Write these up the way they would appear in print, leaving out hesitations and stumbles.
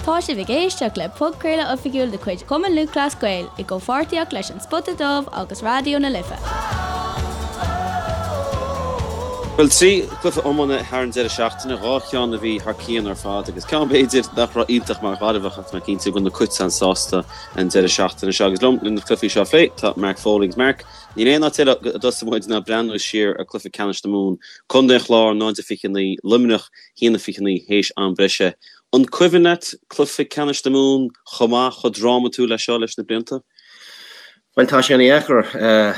Tá sibh ag éisteacht le podchraoladh oifigiúil de chuid Chumann Lúthchleas Gael i gcomhpháirtíocht leis An Spota Dubh agus Raidió na Life. Bhuel, 3 chluiche iomána thar an deireadh seachtaine, 2 cheann a bhí thar cionn ar fad agus ceann b'fhéidir nach raibh iontach mar Ghaillimheach ach tá mé cinnte go bhfuil na Cait an-sásta an deireadh seachtaine seo. Agus liom le na cluichí seo a phlé tá Mark Foley agus Mark, níl aon áit eile a dtosóidh muid ná breathnú siar ar chluiche ceannais na Mumhan, Contae an Chláir 0-29, Luimneach 1-29 théis am breise. An cuimhin leat cluiche ceannais na Mumhan chomh maith, chomh drámatúil leis seo leis na blianta? Bhuel, tá sé ana-dheacair.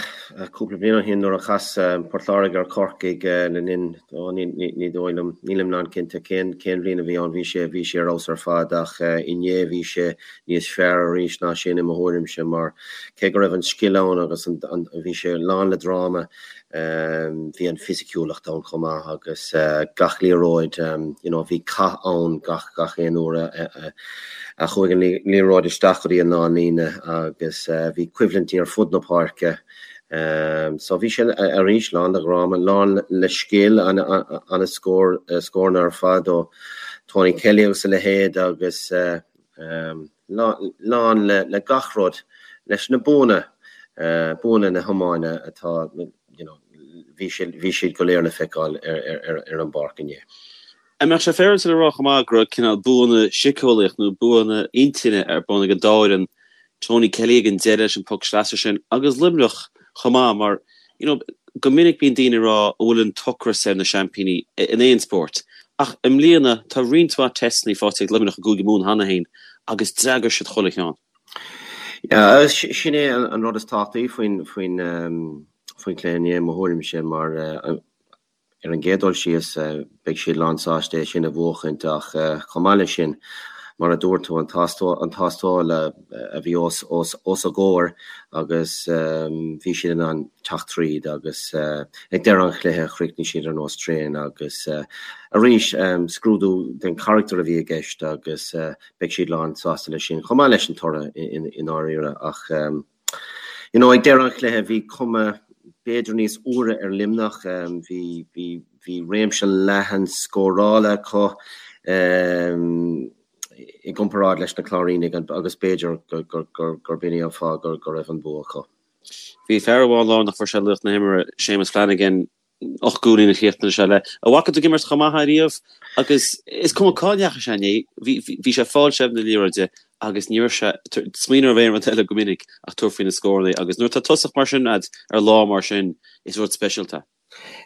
Cúpla bliain ó shin nuair a chas Port Láirge ar Chorcaigh le linn, ó ní dóigh liom, nílim lánchinnte cén cén bhliain a bhí ann, bhí sé, bhí sé ar fheabhas ar fad ach inné bhí sé níos fearr arís ná sin i mo thuairimse mar cé go raibh an scil ann agus an, bhí sé lán le dráma, Bhí an fisiciúlacht ann chomh maith agus gach liathróid, you know, bhí cath ann gach gach aon uair a chuaigh an liathróid isteach go dtí an lánlíne agus bhí coimhlintí ar fud na páirce. So bhí sé arís lán de dhráma, lán le scil, an-scór, scóranna ar fad ó Tony Kelly agus a leithéid agus lán le gach rud, leis na buanna, buanna na hiomána atá, you know, bhí siad, bhí siad go léir le feiceáil ar an bpáirc inné. An mbeadh sé féaráilte le rá chomh maith go raibh cineál buanna síceolaíoch nó buanna intinne ar bun ag an dá fhoireann, Tony Kelly ag an deireadh leis an poc sleasa sin agus Luimneach chomh maith mar, you know, go minic bíonn daoine ag rá an bhfuil an t-ocras ar na seaimpíní in aon spórt ach i mbliana tá roinnt mhaith teisteanna faighte ag Luimneach i gCúige Mumhan cheana féin agus d'fhreagair siad chuile cheann. Yeah, sin é an rud is tábhachtaí faoin faoin faoin chluiche inné i mo thuairimse mar Ar an gcéad dul síos, beidh siad lánsásta é sin a bhuachaint ach chomh maith leis sin, mar a dúirt tú, an tástáil a bhí os a gcomhair agus bhí siad in ann teacht tríd agus ag deireadh an chluiche chríochnaigh siad ar nós traein agus arís scrúdú den charachtar a bhí i gceist agus beidh siad lánsásta leis sin chomh maith leis an toradh i ndáiríre ach You know, ag deireadh an chluiche bhí cuma b'fhéidir níos úire ar Luimneach, bhí, bhí, bhí réimse leathan scórála acu i gcomparáid leis na Cláirínigh agus b'fhéidir gurb in é an fáth go raibh an bua acu. Bhí fear amháin lárnach, fuair sé laoch na himeartha, Séamus Flanagan, 8 gcúilín a chríochnaigh sé le. An bhfaca tú ag imirt chomh maith é riamh agus is cuma cá ndeachaigh sé inné, bhí, bhí sé ag fáil seilbh na liathróide agus ní raibh sé ag smaoineamh ar aon rud eile go minic ach tabhairt faoi na scóranna agus nuair atá tosach mar sin agat ar lá mar sin, is rud speisialta é.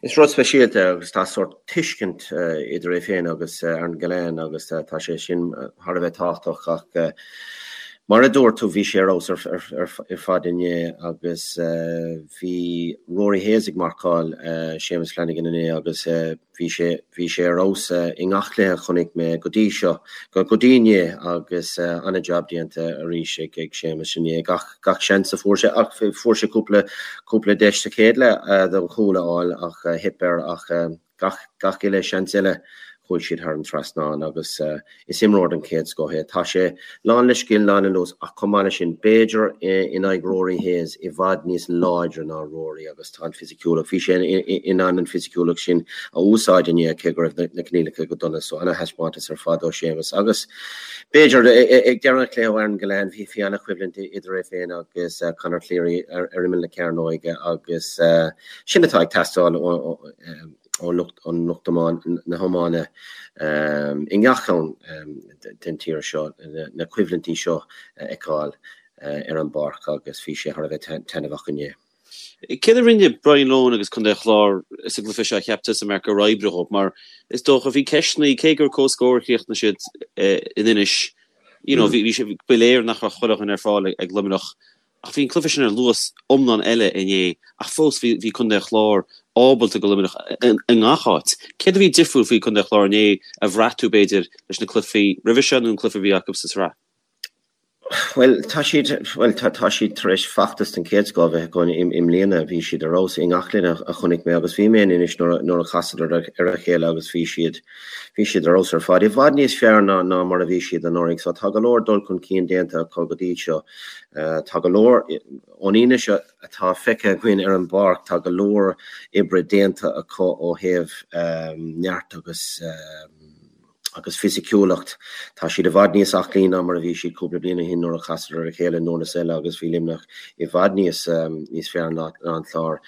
Is rud speisialta é agus tá sórt tuiscint idir é féin agus Aaron Gillane agus tá sé sin thar a bheith tábhachtach ach mar a dúirt tú bhí sé ar fheabhas ar fad inné agus Bhí Rory Hayes ag marcáil Séamus Flanagan inné agus bhí sé bhí sé ar fheabhas i ngach cluiche a chonaic mé go dtí seo, go dtí inné agus an-jab déanta arís ag ag Séamus inné. Gach gach seans a fuair sé ach fuair sé cúpla cúpla deis sa chéad leath don chúl a fháil ach theip air ach Gach, gach uile seans eile chuaigh siad thar an trasnán agus is imreoir den chéad scoth é. Tá sé lán le scil, lán le luas ach chomh maith leis sin, b'fhéidir in aghaidh Rory Hayes, i bhfad níos láidre ná Rory agus tá an fisiciúlacht, bhí sé in ann an fisiciúlacht sin a úsáid inné cé go raibh na coinníollacha go dona. So ana-thaispeántas ar fad ó Séamus agus b'fhéidir ag deireadh an chluiche ó Aaron Gillane, bhí, bhí ana-choimhlint idir é féin agus Conor Cleary ar imeall na cearnóige agus Sin atá ag teastáil ó lucht an lucht na hiomána i ngach ceann den tír seo, na coimhlintí seo a fheiceáil ar an bpáirc agus bhí sé thar a bheith taitneamhach inné. Céard a rinne Brian Lohan agus Contae an Chláir sa gcluiche seo a cheap tusa, Mark, gur oibrigh dhóibh? Mar is dócha, bhí ceisteanna, cé gur comhscór a chríochnaigh siad in Inis, you know, bhí sé, ba léir nach raibh chuile dhuine ar fáil ag Luimneach. Ach bhí an cluiche sin ar luas iomlán eile inné ach fós bhí bhí Contae an Chláir ábalta ag Luimneach i ngach áit. Céard a bhí difriúil faoi Contae an Chláir inné a bhraith tú b'fhéidir leis na cluichí roimhe seo nó an cluiche a bhí acu sa tsraith? Bhuel tá siad bhuel tá tá siad tar éis feachtas den chéad scoth a bheith acu i mbliana. Bhí siad ar fheabhas i ngach cluiche a chonaic mé agus bhí mé in Inis nuair a nuair a chasadar ar a chéile agus bhí siad bhí siad ar fheabhas ar fad. I bhfad níos fearr ná ná mar a bhí siad anuraidh. So tá go leor dul chun cinn déanta acu go dtí seo. Tá go leor, ón fhianaise atá feicthe againn ar an bpáirc, tá go leor oibre déanta acu ó thaobh neart agus. Agus fisiciúlacht, tá siad i bhfad níos aclaí ná mar a bhí siad cúpla bliain ó shin nuair a chasadar ar a chéile i nDurlas Eile agus bhí Luimneach i bhfad níos níos fearr ná an Clár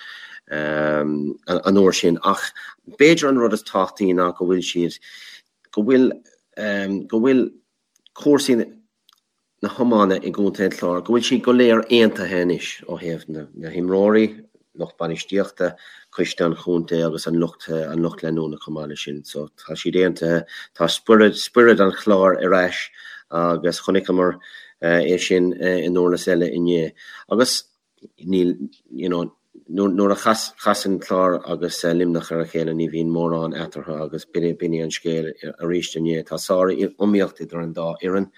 an uair sin. Ach b'fhéidir an rud is tábhachtaí ná go bhfuil siad, go bhfuil, go bhfuil cúrsaí na hiomána i gContae an Chláir, go bhfuil siad go léir aontaithe anois ó thaobh na himreoirí, lucht bainistíochta, coiste an chontae agus an lucht an lucht leanúna chomh maith leis sin. So tá siad aontaithe, tá spiorad spiorad an Chláir ar ais agus chonaiceamar é sin i nDurlas Eile inné. Agus níl, you know, nuair a chasann Clár agus Luimneach ar a chéile ní bhíonn mórán eatarthu agus b'in é an scéal arís inné. Tá sár-iomaíocht idir an dá fhoireann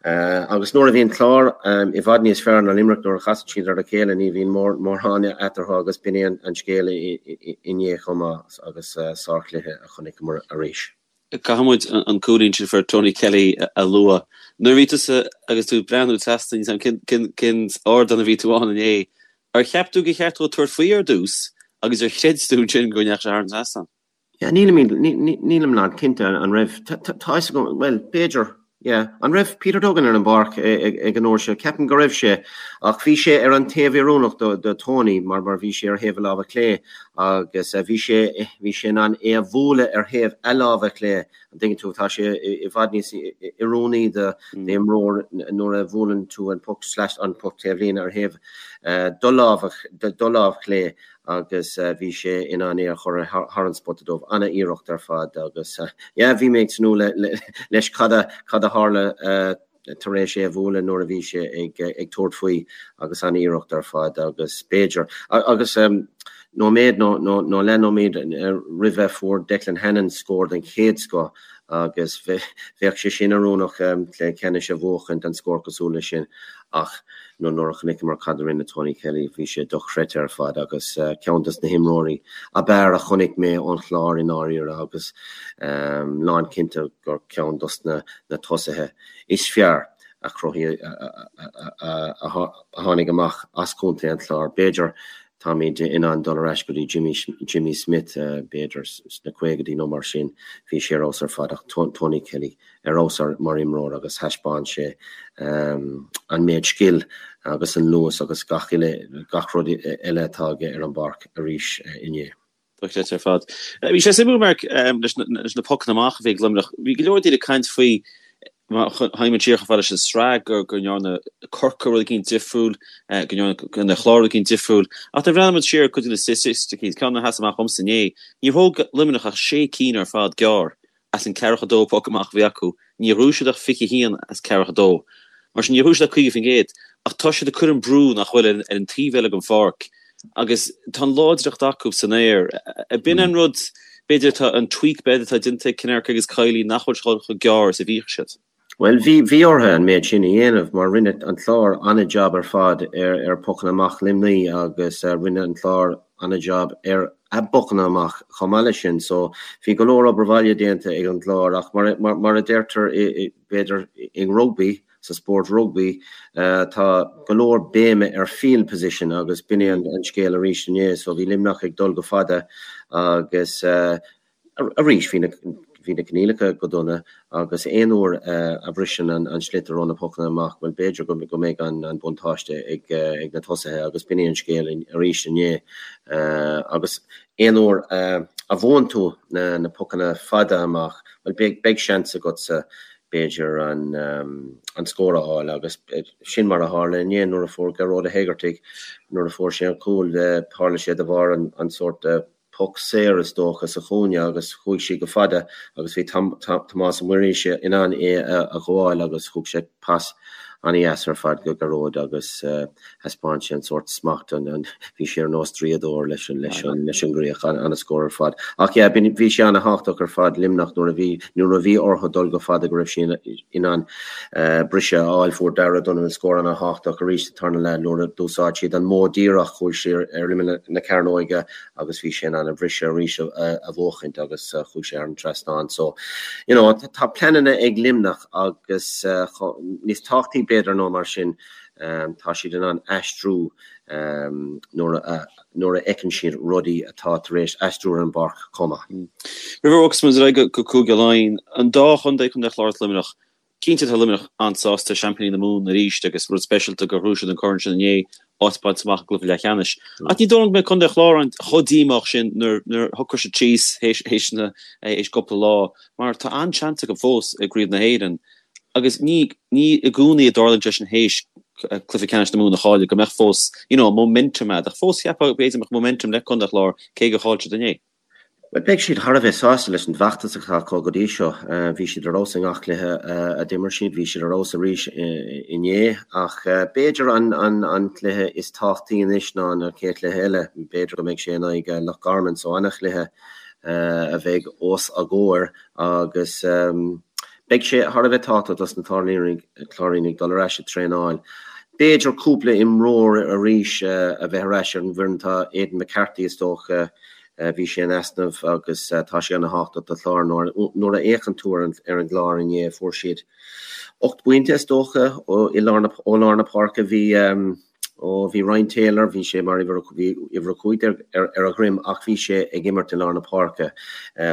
agus nuair a bhíonn Clár i bhfad níos fearr ná Luimneach nuair a chasann siad ar a chéile ní bhíonn mórán eatarthu agus b'in é an scéal inné chomh maith agus sárchluiche a chonaiceamar arís. Caithfidh muid an cúilín sin a fuair Tony Kelly a lua. Nuair a bhí tusa agus tú ag breathnú trasna, níl 's agam cén ardán a bhí tú ann inné, ar cheap tú gur cheart dó tabhairt faoi ar dtús agus ar chreid tú ansin go ndeachaigh sé thar an trasnán? Yeah, nílim, nílim lán cinnte an raibh, tá fhios agam, bhuel, b'fhéidir, yeah, an raibh Peter Duggan ar an bpáirc ag an uair seo? Ceapaim go raibh sé, ach bhí sé ar an taobh oiriúnach do, do Tony mar, mar bhí sé ar thaobh a láimhe clé agus bhí sé, bhí sé in ann é a bhualadh ar thaobh a láimhe clé, an dtuigeann tú, tá sé i bhfad níos oiriúnaí do imreoir nuair a bhuaileann tú an puc slash an puc taobhlíne ar thaobh do láimhe, do lámh chlé agus bhí sé in ann é a chur thar an spota dubh. Ana-iarracht ar fad agus yeah bhí mé ag tnúth leis cad a cad a tharla tar éis é a bhualadh nuair a bhí sé ag ag tabhairt faoi agus ana-iarracht ar fad agus b'fhéidir agus nóiméad nó nó nó leathnóiméad roimhe fuair Declan Hannon scór den chéad scoth agus bheadh sé sin oiriúnach le ceannais a bhuachaint an scór cosúil leis sin ach nuair a chonaiceamar cad a rinne Tony Kelly, bhí sé dochreidte ar fad agus ceann dos na himreoirí ab fhearr a chonaic mé ón Chlár i ndáiríre agus lán cinnte gur ceann dos na tosaithe is fearr a chruthaigh a tháinig amach as Contae an Chláir. B'fhéidir táimid in ann dul ar ais go dtí Jimmy Jimmy Smith b'fhéidir sna caogaidí nó mar sin, bhí sé ar fheabhas ar fad ach Tony Kelly ar fheabhas mar imreoir agus thaispeáin sé an méid scil agus an luas agus gach uile, gach rud eile atá aige ar an bpáirc arís inné. Dochreidte ar fad. Bhí sé suimiúil, Mark, leis na pocanna amach a bhí ag Luimneach. Bhí go leor daoine ag caint faoi, má théimid siar chomh fada leis an sraith, go ndearna Corcaigh rud eicínt difriúil, go ndearna an Clár rud eicínt difriúil. Ach nuair a bhreathnaíonn muid siar ar cuid de na staitisticí, ceann a sheas amach dhomsa inné, níor thóg Luimneach ach sé cinn ar fad gearr As an 42 poc amach a bhí acu, níor ghnóthaigh siad ach 21 as 42. Mar sin, níor ghnóthaigh siad ach 50%. Ach tá siad ag cur an brú nach bhfuil ar an taobh eile den pháirc agus tá an láidreacht acu san aer. B'in an rud, b'fhéidir, atá an tweak b'fhéidir atá déanta ag Kinnerk agus Kiely nach bhfuil siad chomh gearr is a bhíodh siad. Bhuel, bhí, bhí orthu an méid sin a dhéanamh mar rinne an Clár an-jab ar fad ar, ar pocanna amach Luimnigh agus rinne an Clár an-jab ar a bpocanna amach chomh maith leis sin. So, bhí go leor obair bhaile déanta ag an gClár ach mar, mar, mar a deirtear i, i, b'fhéidir i rugbaí, sa spórt rugbaí, tá go leor béime ar field position agus b'in é an, an scéal arís inné. So, bhí Luimneach ag dul go fada agus, Arís, bhí na bhí na coinníollacha go dona agus aon uair a bhriseann an sliotar ó na pocanna amach, bhuel, b'fhéidir go go mbeidh an buntáiste ag ag na tosaithe agus b'in é an scéal arís inné. Agus aon uair a bhuann tú na na pocanna fada amach, bhuel, beidh beidh seans agatsa b'fhéidir an an scór a fháil agus sin mar a tharla inné nuair a fuair Gearóid Ó hÉigeartaigh, nuair a fuair sé an cúl, tharla sé de bharr an an sórt poc saor is dócha sa chúinne agus chuaigh sí go fada agus bhí Tomás Ó Muirthile in ann é a ghabháil agus thug sé pas an-dheas ar fad go Gearóid agus thaispeáin sé an sórt smacht, bhí sé ar nós draíodóir leis an leis an leis an gcríoch, an-scór ar fad. Ach yeah, bhí sé an-thábhachtach ar fad Luimneach nuair a bhí nuair a bhí orthu dul go fada go raibh siad in ann briseadh a fháil. Fuair Darragh Donovan scór an-thábhachtach arís sa tarna leath nuair a d'úsáid siad an modh díreach, chuaigh sé ar imeall na cearnóige agus bhí sé in ann an briseadh arís a bhuachaint agus chuaigh sé thar an trasnán. So, you know, tá pleananna ag Luimneach agus níos tábhachtaí b'fhéidir ná mar sin. Tá siad in ann aistriú nuair a nuair a fheiceann siad rudaí atá tar éis aistriú ar an bpáirc chomh maith. Roimh a bhogfas muid ar aghaidh go Cúige Laighean, an dá chontae, Contae an Chláir agus Luimneach, Cinnte tá Luimneach an-sásta, seaimpíní na Mumhan arís agus rud speisialta gur ghnóthaigh siad an corn sin inné, áit bainte amach i gcluiche leathcheannais. Ach ní dóigh liom go mbeidh Contae an Chláir chomh díomách sin nuair nuair a shocróidh siad síos théis na théis cúpla lá mar tá an-seans acu fós i gCraobh na hÉireann agus ní ní i gcónaí a dtarlaíonn sé sin théis cluiche ceannais na Mumhan a chailleadh go mbeadh fós you know momentum agat ach fós cheapfá b'fhéidir go mbeadh momentum le Contae an Chláir cé gur chaill siad inné. Bhuel, beidh siad thar a bheith sásta leis an bhfeachtas atá acu go dtí seo. Bhí siad ar fheabhas i ngach cluiche a d'imir siad, bhí siad ar fheabhas arís inné. Ach b'fhéidir an cluiche is tábhachtaí anois ná an chéad chluiche eile. B'fhéidir go mbeidh sé in aghaidh Loch Garman, so an-chluiche a bheidh os a gcomhair agus Beidh sé thar a bheith tábhachtach dos na Cláirínigh dul ar ais ag traenáil. B'fhéidir cúpla imreoir arís a bheith ar ais ar an bhfoireann. Tá Aidan McCarthy is dócha, bhí sé in easnamh agus tá sé ana-thábhachtach do Chlár. Nuair a fhéachann tú ar an gClár inné fuair siad 8 bpointe is dócha ó lár na páirce. Bhí. Ó, bhí Ryan Taylor, bhí sé mar uimhir, bhí uimhir 15 ar a dhroim ach bhí sé ag imirt i lár na páirce.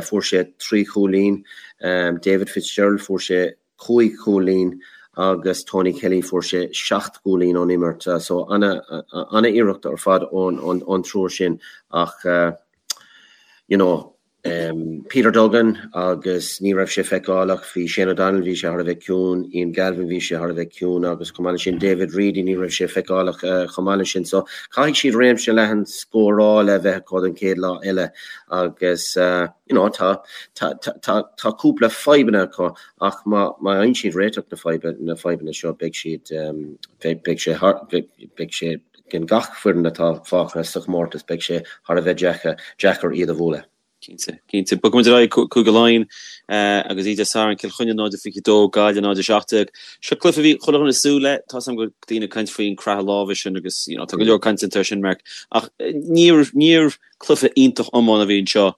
Fuair sé trí chúilín. David Fitzgerald, fuair sé cúig chúilín agus Tony Kelly, fuair sé seacht gcúilín ón imirt. So, ana-iarracht ar fad ón triúr sin ach, you know, Peter Duggan agus ní raibh sé feiceálach, bhí Shane O'Donnell, bhí sé thar a bheith ciúin, Ian Galvin, bhí sé thar a bheith ciúin agus chomh maith leis sin David Reidy, ní raibh sé feiceálach chomh maith leis sin. So caithfidh siad réimse leathan scórála a bheith acu don chéad lá eile agus you know tá tá tá tá cúpla fadhbanna acu ach má má fhaigheann siad réiteach na fadhba na fadhbanna seo beidh siad beidh sé thar beidh sé Gan gach foireann atá fágtha sa chomórtas, beidh sé thar a bheith deacair iad a bhualadh. Cinnte, cinnte. Bogfaidh muid ar aghaidh Cúige Laighean agus iad Dé Sathairn, Cill Chainnigh 0-22, Gaillimh 0-17. Seo cluiche a bhí chuile dhuine ag súil le. Tá 's agam go raibh daoine ag caint faoin croitheadh láimhe sin agus you know tá go leor cainte air sin, Mark. Ach níor níor cluiche iontach iomána a bhí anseo.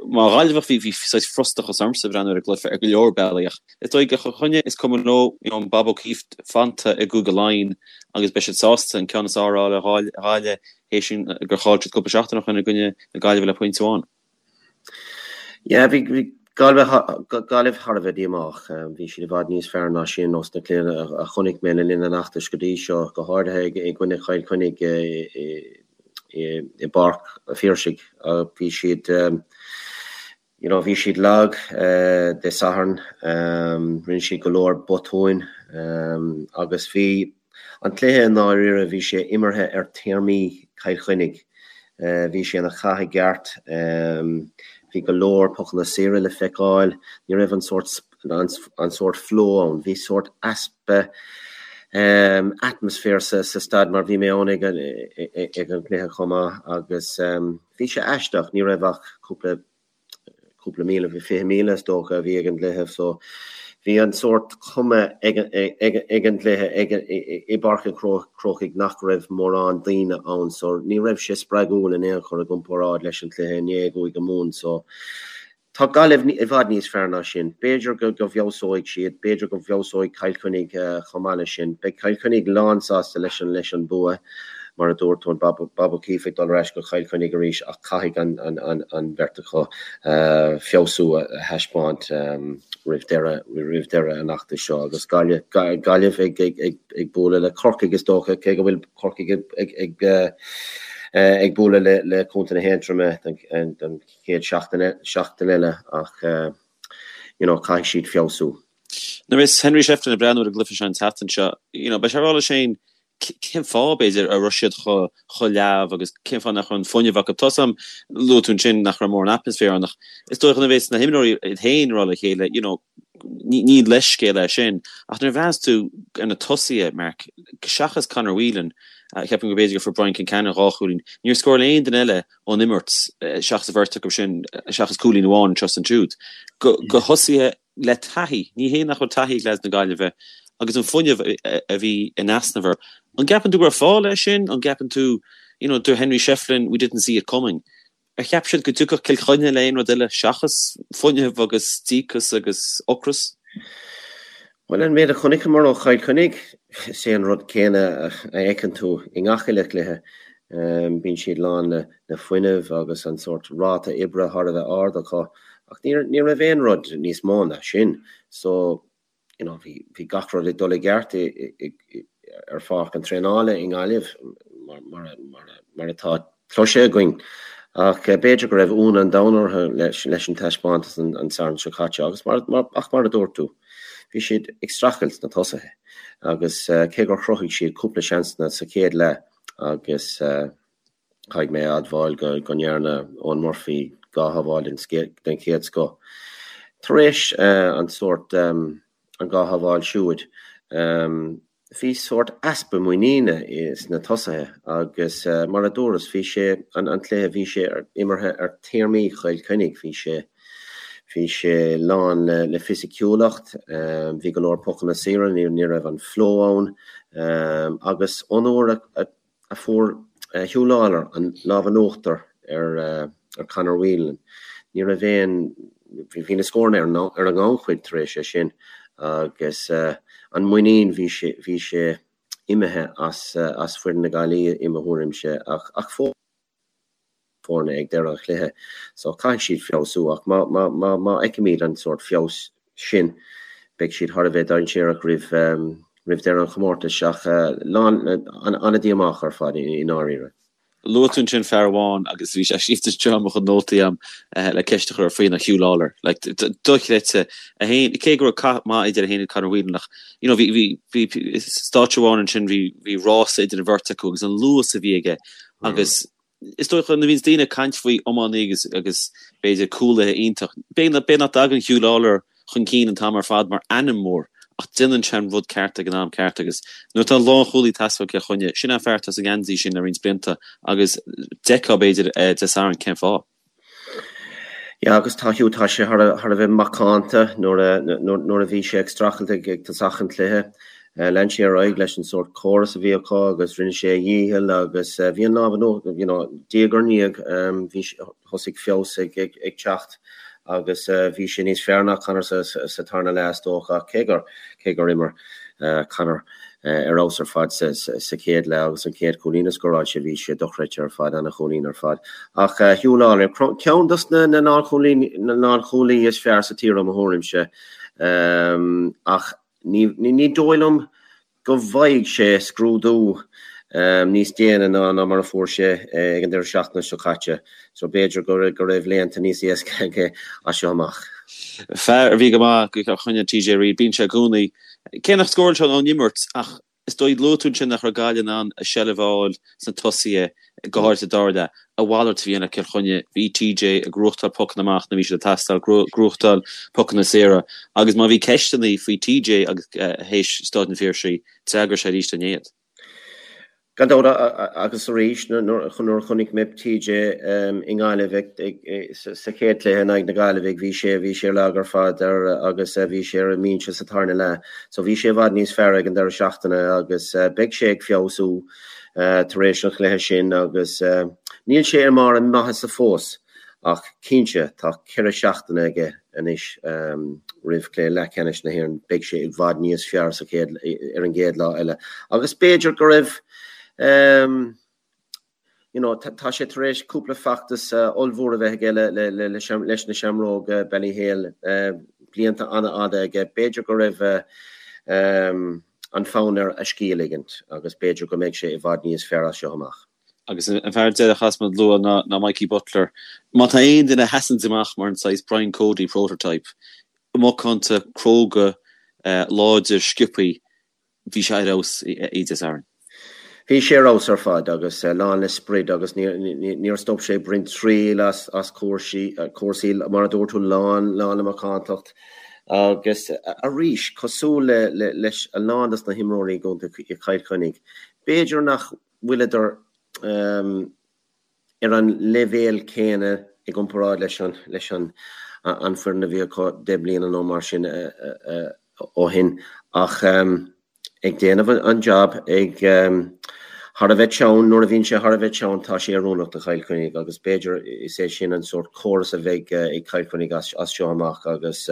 Mar Ghaillimheach bhí bhí saghas frustrachas ormsa ag breathnú ar an gcluiche ar go leor bealaí ach is dóigh do Chill Chainnigh is cuma leo you know an Bob O'Keeffe fanta i gCúige Laighean agus beidh siad sásta an ceann is fearr a fháil ar Ghaillimh théis gur chaill siad cúpla seachtain ó shin i gcoinne na Gaillimhe le pointe amháin. Yeah bhí bhí Gaillimh Gaillimh thar a bheith díomách. Bhí siad i bhfad níos fearr ná sin ós na cluichí a chonaic mé le linn an fheachtais go dtí seo, go háirithe i gcoinne Chill Chainnigh i i bPáirc a' Phiarsaigh. Bhí siad, you know, bhí siad lag Dé Sathairn, rinne siad go leor botúin agus bhí an cluiche i ndáiríre, bhí sé imeartha ar théarmaí Chill Chainnigh. Bhí sé ina chath i gceart, bhí go leor pocanna saora le feiceáil, ní raibh an sórt an sórt flow ann. Bhí sórt easpa atmaisféir sa staid mar bhí mé ann ag an gcluiche chomh maith agus bhí sé aisteach, ní raibh ach cúpla cúpla míle, bhí 20,000 is dócha a bhí ag an gcluiche so bhí an sórt cuma ag an gcluiche i bPáirc an Chrócaigh nach raibh mórán daoine ann so ní raibh sé spreagúil in aon chor i gcomparáid leis an chluiche inné i gCúige Mumhan so Tá Gaillimh i bhfad níos fearr ná sin. B'fhéidir go bhfeabhsóidh siad, b'fhéidir go bhfeabhsóidh Cill Chainnigh chomh maith leis sin. Beidh Cill Chainnigh lánsásta leis an leis an bua, mar a dúirt tú, an Bob Bob O'Keeffe ag dul ar ais go Cill Chainnigh arís ach caithfidh an an an bheirt acu feabhsú a thaispeáint roimh deireadh roimh deireadh an fheachtais seo agus Gaillimh Gaillimh ag ag ag ag bualadh le Corcaigh is dócha, cé go bhfuil Corcaigh ag ag ag bualadh le le Contae na hAontroma don don chéad seachtain eile ach you know caithfidh siad feabhsú. Nuair a bheas Henry Shefflin ag breathnú ar an gcluiche seo an tseachtain seo, you know, beidh sé ag rá leis féin cén fáth, b'fhéidir, a raibh siad chomh leamh agus cén fáth nach raibh an fuinneamh acu. Tá 's agam, luaigh tú ansin nach raibh mórán atmaisféar ann ach is dóigh nuair a bheas na himreoirí iad féin ag rá le chéile, you know, ní leithscéal é sin ach nuair a bhreathnaíos tú ar na tosaithe, Mark, seachas Conor Whelan, ceapaim go b'fhéidir gur fuair Brian Concannon dhá chúilín, níor scóráil aon duine eile ón imirt, seachas an bheirt acu sin, seachas cúilín amháin anseo is ansiúd, go thosaithe le taithí, ní hé nach bhfuil taithí ag leaids na Gaillimhe, agus an fuinneamh a bhí in easnamh orthu. An gceapann tú go raibh fáth leis sin? An gceapann tú, you know, dúirt Henry Shefflin, we didn't see it coming. Ar cheap siad go dtiocfadh Cill Chainnigh le aon rud eile seachas fuinneamh agus díocas agus ocras? Bhuel, an méid a chonaiceamar ó Chill Chainnigh, is é an rud céanna a fheiceann tú i ngach uile chluiche. Bíonn siad lán le fuinneamh agus an sórt ráta oibre thar a bheith ard acu ach ní raibh aon rud níos mó ná sin. So, you know, bhí, bhí gach rud ag dul i gceart ar pháirc an traenála i nGaillimh mar, mar, mar, mar atá cloiste againn. Ach b'fhéidir go raibh ionadh an domhain orthu leis, leis an taispeántas an, an Satharn seo caite agus mar, mar, ach mar a dúirt tú, bhí siad ag streachailt sna tosaithe agus cé gur chruthaigh siad cúpla seansanna sa chéad leath agus Caithfidh mé a admháil go ndearna Eoin Murphy 2 shábháil den chéad scoth. Tar éis an sórt, an 2 shábháil siúd, bhí sórt easpa muiníne sna tosaithe agus mar a dúras, bhí sé, an cluiche, bhí sé imeartha ar théarmaí Chill Chainnigh, bhí sé, bhí sé lán le fisiciúlacht, bhí go leor pocanna saora, ní raibh an flow ann agus ón uair a a fuair Huw Lawlor an lámh in uachtar ar Conor Whelan. Ní raibh aon, bhí na scóranna ar an ngannchuid tar éis é sin agus an muinín, bhí sé, bhí sé imithe as, as foireann na Gaillimhe i mo thuairimse ach fós. foirne ag deireadh an chluiche so caithfidh siad feabhsú ach má má má má fheicimid an sórt feabhas sin beidh siad thar a bheith dainséarach roimh roimh deireadh an chomórtais ach lán an-díomách ar fad i ndáiríre. Luaigh tú ansin fear amháin agus bhí sé scríofa anseo i mo chuid nótaí agam le ceist a chur air faoi ná Huw Lawlor. Like dochreidte. É féin cé go raibh cath maith idir é féin agus Conor Whelan ach you know bhí bhí bhí stáitse amháin ansin bhí bhí rása idir an bheirt acu agus an luas a bhí aige Agus is dócha nuair a bhíonns daoine ag caint faoi iománaí agus agus b'fhéidir cúlaithe iontach, b'fhéidir nach dtagann Huw Lawlor chun cinn an t-am ar fad mar ainm mór ach déanann sé an rud ceart ag an am ceart agus nuair atá lánchúlaí ag teastáil Cill Chainnigh, sin an fear atá sa ngeansaí sin le roinnt blianta agus d'fheicfeá b'fhéidir Dé Sathairn cén fáth. Yeah agus tá Hugh, tá sé thar a thar a bheith macánta nuair a nuair a bhí sé ag streachailt ag ag tosach an chluiche. Lean sé ar aghaidh leis an sórt córas a bhí acu agus rinne sé a dhícheall agus bhí an lámh in uachtar, you know, diaidh ar ndiaidh bhí thosaigh feabhas ag ag ag teacht agus bhí sé níos fearr ná Conor sa sa tarna leath is dócha ach cé gur cé gur imir Conor ar fheabhas ar fad sa chéad leath agus an chéad chúilín a scóráil sé, bhí sé dochreidte ar fad, ana-chúilín ar fad. Ach Huw Lawlor, ceann dos na lánchúlaí is fearr sa tír i mo thuairimse ach ní dóigh liom go bhfaighidh sé scrúdú níos déine ná mar a fuair sé ag an deireadh seachtaine seo caite so b'fhéidir go raibh laethanta níos éasca aige as seo amach. Fear a bhí go maith do Chill Chainnigh TJ Reid, bíonn sé i gcónaí Cé nach scóráil sé ón imirt ach is dóigh, luaigh tú ansin nach raibh Gaillimh in ann a seilbh a fháil sna tosaithe, go háirithe sa dara leath. A mhalairt a bhí ann le Cill Chainnigh. Bhí TJ ag gnóthachtáil pocanna amach nuair a bhí siad ag teastáil, gnóthachtáil pocanna saora agus má bhí ceisteanna faoi TJ agus théis Stáid an Phiarsaigh, d'fhreagair sé arís inné iad. Gan dabht, agus arís nuair a chonaic mé TJ i nGaillimh sa chéad chluiche in aghaidh na Gaillimhe, bhí sé bhí sé lag ar fad agus bhí sé ar an mbinse sa tarna leath. So bhí sé i bhfad níos fearr ag an deireadh seachtaine agus beidh sé ag feabhsú tar éis an chluiche sin agus níl sé i mbarr a maitheasa fós. Ach cinnte, tá 4 seachtaine aige anois roimh chluiche leathcheannais na hÉireann. Beidh sé i bhfad níos fearr sa chéad, ar an gcéad lá eile. Agus b'fhéidir go raibh, you know, tá sé tar éis cúpla feachtas ollmhór a bheith aige leis na Seamróga Ballyhale, blianta an-fhada aige. B'fhéidir go raibh an fonn air a scíth a ligint agus b'fhéidir go mbeidh sé i bhfad níos fearr as seo amach. Agus an fear deiridh a chaithfeas muid a lua ná Mikey Butler. Má tá aon duine a sheasanns amach mar an saghas Brian Cody prototype, macánta, cróga, láidir, sciobthaí, bhí sé ar fheabhas Dé Sathairn. Bhí sé ar fheabhas ar fad agus lán le sprid agus níor stop sé ag baint triail as cúrsaí, mar a dúirt tú, lán le macántacht agus arís, cosúil leis a lán dos na himreoirí i gcontae Chill Chainnigh, b'fhéidir nach bhfuileadar ar an leibhéal céanna i gcomparáid leis an leis an an foireann a bhí acu 10 bliana nó mar sin ó shin ach ag déanamh an job ag. thar a bheith teann, nuair a bhíonn sé thar a bheith teann, tá sé oiriúnach do Chill Chainnigh agus b'fhéidir is é sin an sórt córas a bheidh ag Cill Chainnigh as seo amach agus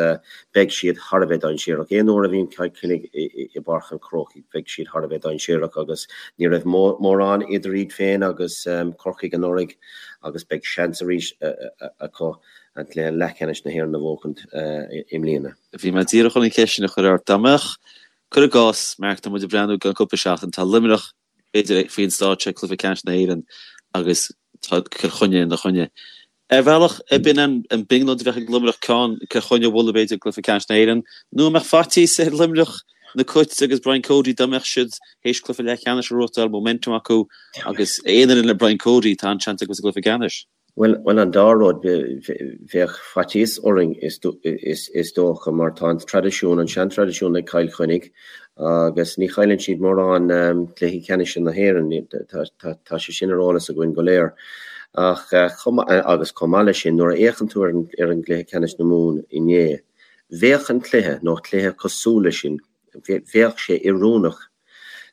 beidh siad thar a bheith dainséarach. Aon uair a bhíonn Cill Chainnigh i bPáirc an Chrócaigh, beidh siad thar a bheith dainséarach agus ní raibh mórán idir iad féin agus Corcaigh anuraidh agus beidh seans arís acu an cluiche leathcheannais na hÉireann a bhuachaint i mbliana. Bhí mé díreach chun an cheist sin a chur ort. Dá mbeadh, cuir i gcás, Mark, tá muid ag breathnú i gceann cúpla seachtain, tá Luimneach, b'fhéidir, faoin stáitse ag cluiche ceannais na hÉireann agus tá Cill Chainnigh ina choinne. Ar bhealach, ab in an brionglóid a bheadh ag Luimneach ceann Cill Chainnigh a bhualadh, b'fhéidir, i gcluiche ceannais na hÉireann, nó an mbeadh faitíos ar Luimneach, na Cait agus Brian Cody, dá mbeadh siad théis cluiche leathcheannais a ghnóthachtáil, momentum acu agus aon fhoireann le Brian Cody, tá an-seans acu sa gcluiche ceannais. Bhuel, an dá rud, bheadh faitíos orainn is dócha mar tá an traidisiún, an seantraidisiún ag Cill Chainnigh agus ní chailleann siad mórán cluichí ceannais na hÉireann, tá sé sin ar eolas againn go léir. Ach, agus chomh maith leis sin, nuair a fhéachann tú ar an gcluiche ceannais na Mumhan inné, bheadh an cluiche, nó cluiche cosúil leis sin, bheadh sé oiriúnach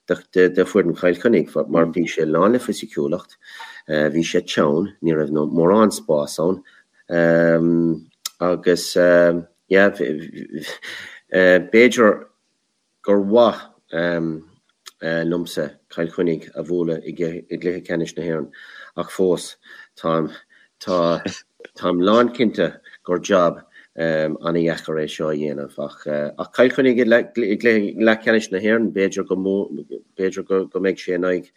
do foireann Chill Chainnigh mar bhí sé lán le fisiciúlacht, bhí sé teann, ní raibh mórán spás ann agus yeah b'fhéidir gur mhaith liomsa Cill Chainnigh a bhualadh i gcluiche ceannais na hÉireann ach fós táim Tá, táim lánchinnte gur jab an-dheacair é seo a dhéanamh ach, ach Cill Chainnigh i gcluiche leathcheannais na hÉireann, b'fhéidir go, b'fhéidir go mbeidh sé in aghaidh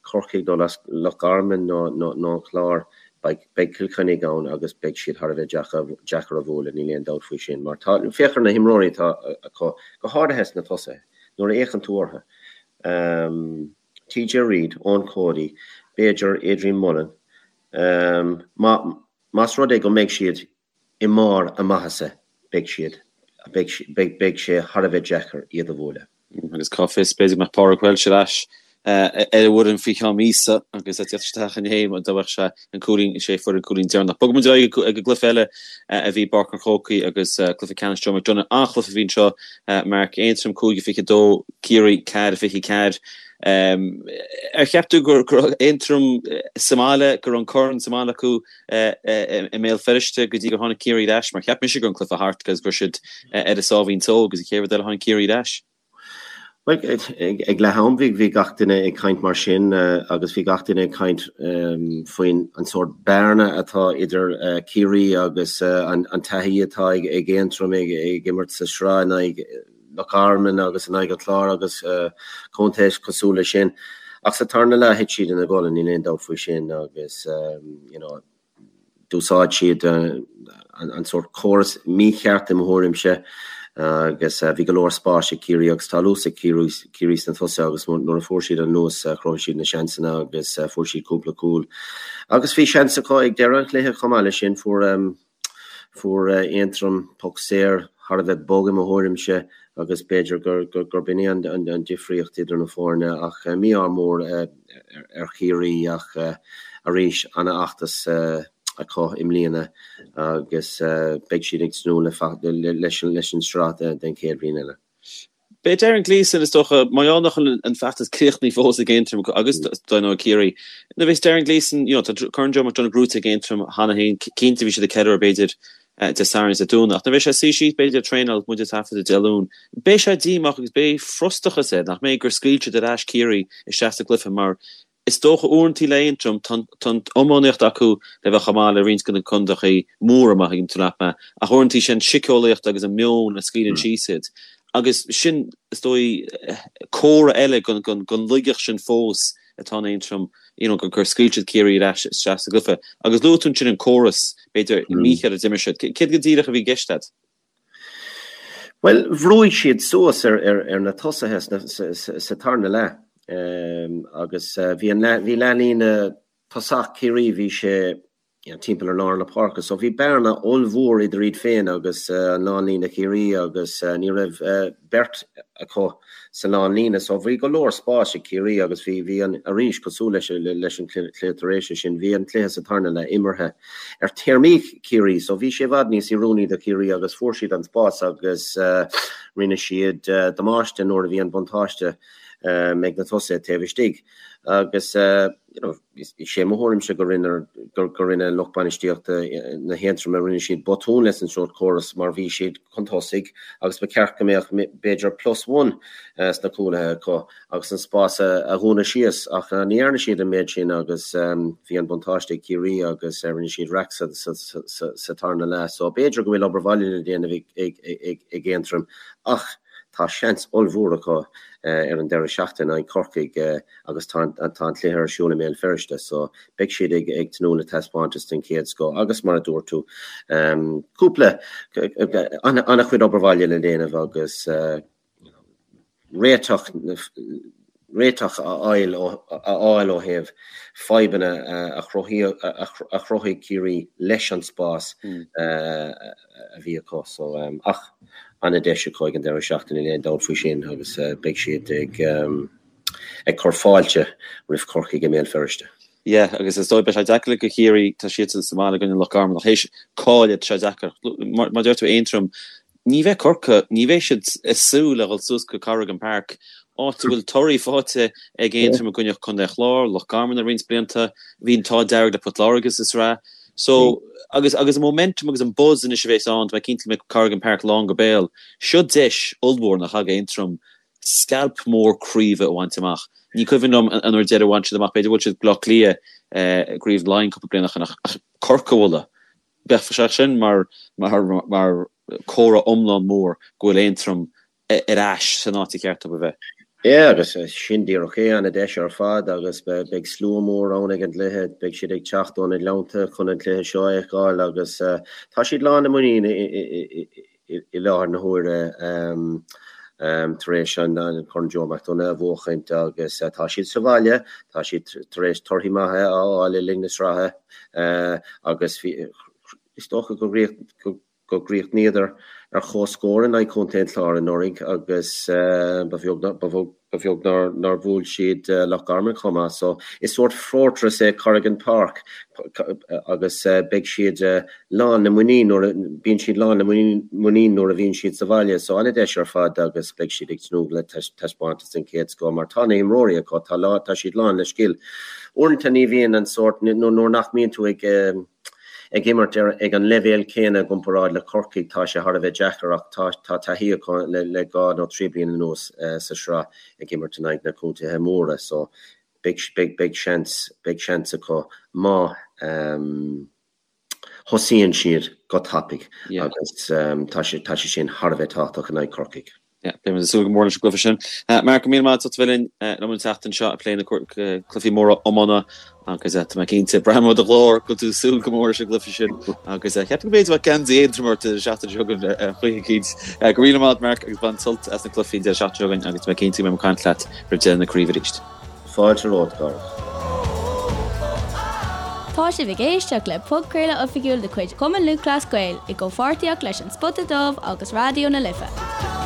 Chorcaigh nó Loch Garman nó an Clár, beidh, beidh Cill Chainnigh ann agus beidh siad thar a bheith deacair a bhualadh, níl aon dabht faoi sin. Mar tá, féach ar na himreoirí atá acu, go háirithe sna tosaithe, nuair a fhéachann tú orthu. TJ Reid, Eoin Cody, b'fhéidir Adrian Mullen, más rud é go mbeidh siad i mbarr a maitheasa, beidh siad, beidh sé thar a bheith deacair iad a bhualadh. Agus cá bhfios, b'fhéidir go mbeadh Pádraig Walsh ar ais ar an bhfoireann faoi cheann míosa agus é ag teacht isteach inné dá mbeadh sé an cúilín, sé a fuair an cúilín deireanach. Bogfaidh muid ar aghaidh ag an gcluiche eile a bhí i bPáirc an Chrócaigh agus cluiche ceannais Joe McDonagh. An-chluiche a bhí anseo, Mark, Aontroim 5-22, Ciarraí 4-24. Ar cheap tú go raibh Aontroim sa mbaile, go raibh an corn sa mbaile acu i mBéal Feirste go dtí gur tháinig Ciarraí ar ais? Mar cheap mise go raibh an cluiche thart agus go raibh siad ar a sáimhín só agus an chéad rud eile tháinig Ciarraí ar ais. Bhuel, ag leath am bhí gach duine ag caint mar sin agus bhí gach duine ag caint faoin an sórt bearna atá idir Ciarraí agus an taithí atá ag Aontroim ag imirt sa sraith in aghaidh Loch Garman agus in aghaidh an Chláir agus contaetha cosúil leis sin. Ach sa tarna leath thit siad ina gcodladh, níl aon dabht faoi sin agus you know d'úsáid siad an sórt córas mícheart i mo thuairimse agus bhí go leor spáis ag Ciarraí agus tá luas ag Ciarraí sna tosaithe agus nuair a fuair siad an luas chruthaigh siad na seansanna agus fuair siad cúpla cúl. Agus bhí seans acu ag deireadh an chluiche chomh maith leis sin, fuair Fuair Aontroim poc saor thar a bheith bog i mo thuairimse agus b'fhéidir gurb in é an difríocht idir na foirne ach mí-ádh mór ar Chiarraí ach arís an-fheachtas acu i mbliana agus beidh siad ag tnúth leis an sraith den chéad bhliain eile. Beidh Darren Gleeson, is dócha, mar gheall nach bhfuil an feachtas críochnaithe fós ag Aontroim agus dar ndóigh Ciarraí. Nuair a bheas Darren Gleeson, you know, tá Corn Joe McDonagh gnóthaithe ag Aontroim cheana féin, cinnte bhí siad ag ceiliúradh b'fhéidir Dé Sathairn is Dé Domhnaigh, ach nuair a bheidh sé ag suí síos b'fhéidir ag traenáil muid ag taifeadadh Dé Luain, beidh sé díomách agus beidh frustrachas air nach mbeidh gur scaoil siad ar ais Ciarraí isteach sa gcluiche mar Is dócha uaireantaí le Aontroim, tá an iománaíocht acu le bheith chomh maith le roinnt de na contaethaí móra, má thuigeann tú leat mé, ach uaireantaí sé an síceolaíocht agus an meon a scaoileann síos iad. Agus sin, is dóigh, comhartha eile den laigeacht sin fós atá in Aontroim, you know, gur scaoil siad Ciarraí ar ais isteach sa gcluiche. Agus luaigh tú ansin an córas, b'fhéidir, mícheart a d'imir siad. Céard go díreach a bhí i gceist agat? Bhuel, bhrúigh siad suas ar na tosaithe sa tarna leath agus bhí an bhí leathlíne tosach Chiarraí, bhí sé timpeall ar lár na páirce so bhí bearna ollmhór idir iad féin agus an lánlíne Chiarraí agus ní raibh beirt acu sa lánlíne so bhí go leor spáis ag Ciarraí agus bhí bhí an arís cosúil leis leis an cluiche tar éis sin bhí an cluiche sa tarna leath imeartha ar théarmaí Chiarraí so bhí sé i bhfad níos oiriúnaí do Chiarraí agus fuair siad an spás agus rinne siad damáiste nuair a bhí an buntáiste. Ag na tosaithe taobh istigh agus you know is é mo thuairimse go rinne go rinne lucht bainistíochta na hAontroma rinne siad botún leis an sórt córas mar bhí siad chun tosaigh agus ba cheart go mbeadh b'fhéidir plus one sna cúlaithe acu agus an spás a dhúnadh síos ach ní dhearna siad an méid sin agus bhí an buntáiste ag Ciarraí agus rinne siad raic sa sa tarna leath so b'fhéidir go bhfuil obair bhaile le déanamh ag ag ag Aontroim ach Tá seans ollmhór acu ar an deireadh seachtaine in aghaidh Corcaigh agus tá an cluiche ar siúl i mBéal Feirste so beidh siad ag tnúth le taispeántas den chéad scoth agus mar a dúirt tú, cúpla, an-chuid obair bhaile le déanamh agus réiteach réiteach a fháil ó thaobh fadhbanna a chruthaigh Ciarraí leis an spás a bhí acu. So, ach an-deis acu ag an deireadh seachtaine, níl aon dabht faoi sin agus beidh siad ag cur fáilte roimh Chorcaigh i mBéal Feirste. Yeah, agus is dóigh beidh sé deacair do Chiarraí, tá siadsan sa mbaile i gcoinne Loch Garman ach théis cailleadh, tá sé deacair. Mar a deir tú Aontroim, Ní bheidh Corcaigh, ní bheidh siad ag súil le dhul suas go Corrigan Park, áit a bhfuil torthaí faighte ag Aontroim i gcoinne Contae an Chláir, Loch Garman le roinnt blianta, bhí an t-ádh dearg le Port Láirge sa sraith. So, agus agus an momentum agus an buzz anois a bheas ann, tá mé cinnte go mbeidh Corrigan Park lán go béal. Seo deis ollmhór nach ea ag Aontroim scailp mór craoibhe a bhaint amach. Ní cuimhin liom an uair deiridh a bhain siad amach, b'fhéidir bhuail siad Bleá Cliath i gCraobh Laighean cúpla bliain ó shin ach Corcaigh a bhualadh. Bheadh sé sin mar mar comhartha iomlán mór go bhfuil Aontroim ar ais san áit a cheart dóibh a bheith. Yeah, agus sin díreach é, an-deis ar fad agus beidh slua mór ann ag an gcluiche, beidh siad ag teacht ó na gleannta chun an cluiche seo a fheiceáil agus tá siad lán le muinín i láthair na huaire tar éis an Corn Joe McDonagh a bhuachaint agus tá siad sa bhaile, tá siad tar éis torthaí maithe a fháil le linn na sraithe agus is dócha go gcríochnaíodar ar comhscór in aghaidh Chontae an Chláir anuraidh agus ba bheag nár bhuail siad Loch Garman chomh maith. So is sórt fortress é Corrigan Park agus beidh siad lán le muinín nuair a, bíonn siad lán le muinín nuair a bhíonn siad sa bhaile. So an-deis ar fad agus beidh siad ag tnúth le taispeántas den chéad scoth mar tá na himreoirí acu, tá, tá siad lán le scil. Uaireanta ní bhíonn an sórt, nuair nach mbíonn tú ag ag imirt ar ag an leibhéal céanna i gcomparáid le Corcaigh, tá sé thar a bheith deacair ach tá tá taithí acu le le 2 nó 3 bliana anuas sa sraith ag imirt in aghaidh na contaetha móra so beidh beidh beidh seans beidh seans acu má thosaíonn siad go tapaidh agus tá sé tá sé sin thar a bheith tábhachtach in aghaidh Corcaigh. Yeah, beidh muid ag súil go mór leis an gcluiche sin. Mark, go míle maith agat as ucht a bheith linn liom an tseachtain seo ag plé na cluichí móra iomána agus tá mé cinnte, braithim ó do ghlór go bhfuil tú ag súil go mór leis an gcluiche sin agus ceapaim go mb'fhéidir go mbeadh geansaí Aontroim ort an seachtain seo chugainn ar chaoi eicínt. Go míle maith agat Mark agus bain sult as na cluichí an deireadh seachtaine seo chugainn agus tá mé cinnte go mbeidh mé ag caint leat roimh deireadh na craoibhe arís. Fáilte romhat, a Chárthaigh. Tá sibh ag éisteacht le podchraoladh oifigiúil de chuid Chumann Lúthchleas Gael i gcomhpháirtíocht leis An Spota Dubh agus Raidió na Life.